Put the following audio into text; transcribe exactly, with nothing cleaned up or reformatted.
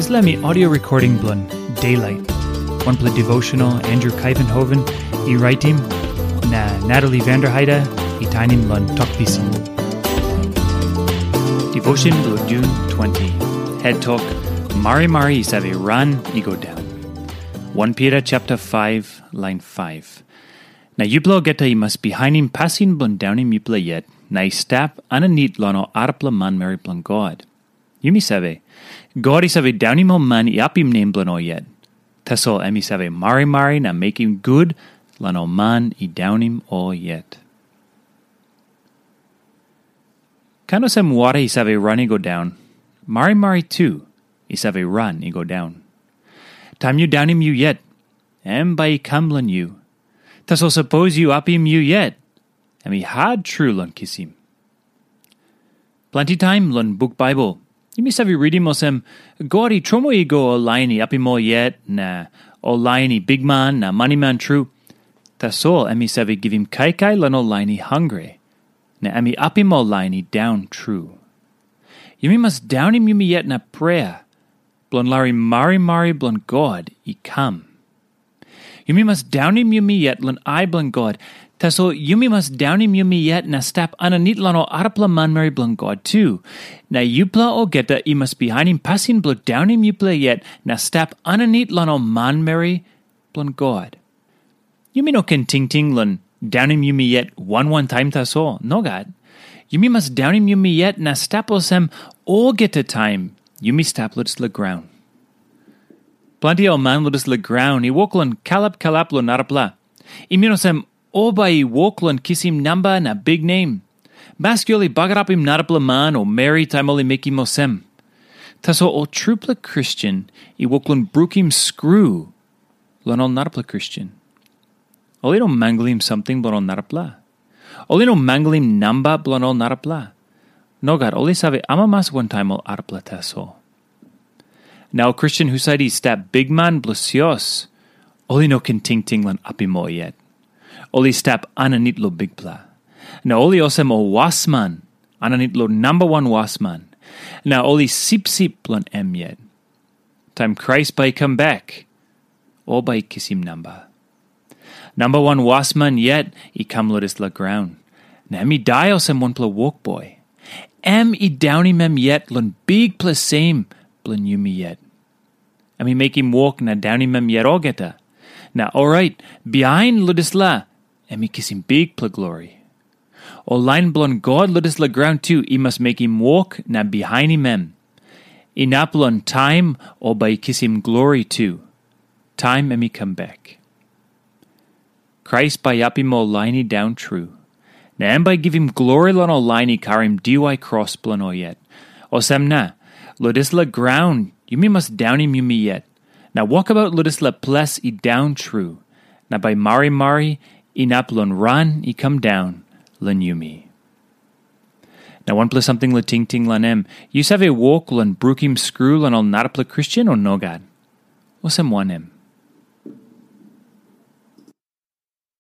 Dispela mi audio recording bilong Daylight, wanpela devotional Andrew Kaivenhoven i raitim, na Natalie Vanderheide i tainim long Tok Pisin. Devotion bilong June twenty. Head Tok, Marimari i save ran i go daun. Wan Pita chapter five, line five. Na yupela olgeta i mas bihainim pasin bilong daunim yupela yet, na i stap aninit long ol arapela manmeri bilong God. Yumi save, God i save daunim ol man i apim nem bilong ol yet. Tasol em i save marimari na mekim gut long ol man i daunim ol yet. Kain olsem wara i save ran i go daun, marimari tu i save ran i go daun. Taim yu daunim yu yet, em bai i kam long yu. Tasol sapos yu apim yu yet, em i hat tru long kisim. Planti taim long buk Baibel, yumi save ritim olsem, God i tromoi i go ol lain i apim ol yet, na ol lain i bikman na maniman tru. Tasol em i save givim kaikai long ol lain i hangre, na em i apim ol lain i daun tru. Yumi mas daunim yumi yet na prea, bilong larim marimari bilong God i kam. Yumi mas daunim yumi yet long ai bilong God. Tasol yumi mas daunim yumi yet na stap aninit long ol arapela manmeri bilong God tu. Na yupela olgeta i mas bihainim pasin bilong daunim yupela yet na stap aninit long ol manmeri bilong God. Yumi no ken tingting long daunim yumi yet wan wan taim tasol. Nogat. Yumi mas daunim yumi yet na stap olsem olgeta taim yumi stap long dispela graun. Planti ol man long dispela graun i wok long kalap kalap long narapela. I min olsem, ol bai i wok long kisim namba na biknem. Maski ol i bagarapim narapela man o meri taim ol i mekim olsem. Tasol ol trupela Kristen i wok long brukim skru long ol narapela Kristen. Ol i no manglim samting bilong ol narapela. Ol i no manglim namba bilong ol narapela. Nogat, ol i save amamas wantaim ol arapela tasol. Na ol Kristen husat i stap bikman bilong sios, ol i no ken tingting long apim ol yet. Ol i stap aninit long Bikpela. Na ol i olsem ol wasman aninit long namba wan wasman. Na ol i sipsip long em yet. Taim Krais bai i kam bek, ol bai i kisim namba. Namba wan wasman yet i kam long dispela graun, na em i dai olsem wanpela wokboi. Em i daunim em yet long bikpela sem bilong yumi yet. Em i mekim wok na daunim em yet olgeta. Na orait, bihain long dispela, em i kisim bikpela glori. Ol lain bilong God long dispela graun tu i mas mekim wok na bihainim em. Inap long taim ol bai i kisim glori tu, taim em i kam bek. Krais bai i apim ol lain i daun tru, na em bai i givim glori long ol lain i karim diwai kros bilong ol yet. Olsem na, long dispela graun yumi mas daunim yumi yet, na wokabaut long dispela ples i daun tru, na bai marimari inap long ran i kam daun long yumi. Na wanpela samting long tingting long em, yu save wok long brukim skru long ol narapela Kristen o nogat? Olsem wanem?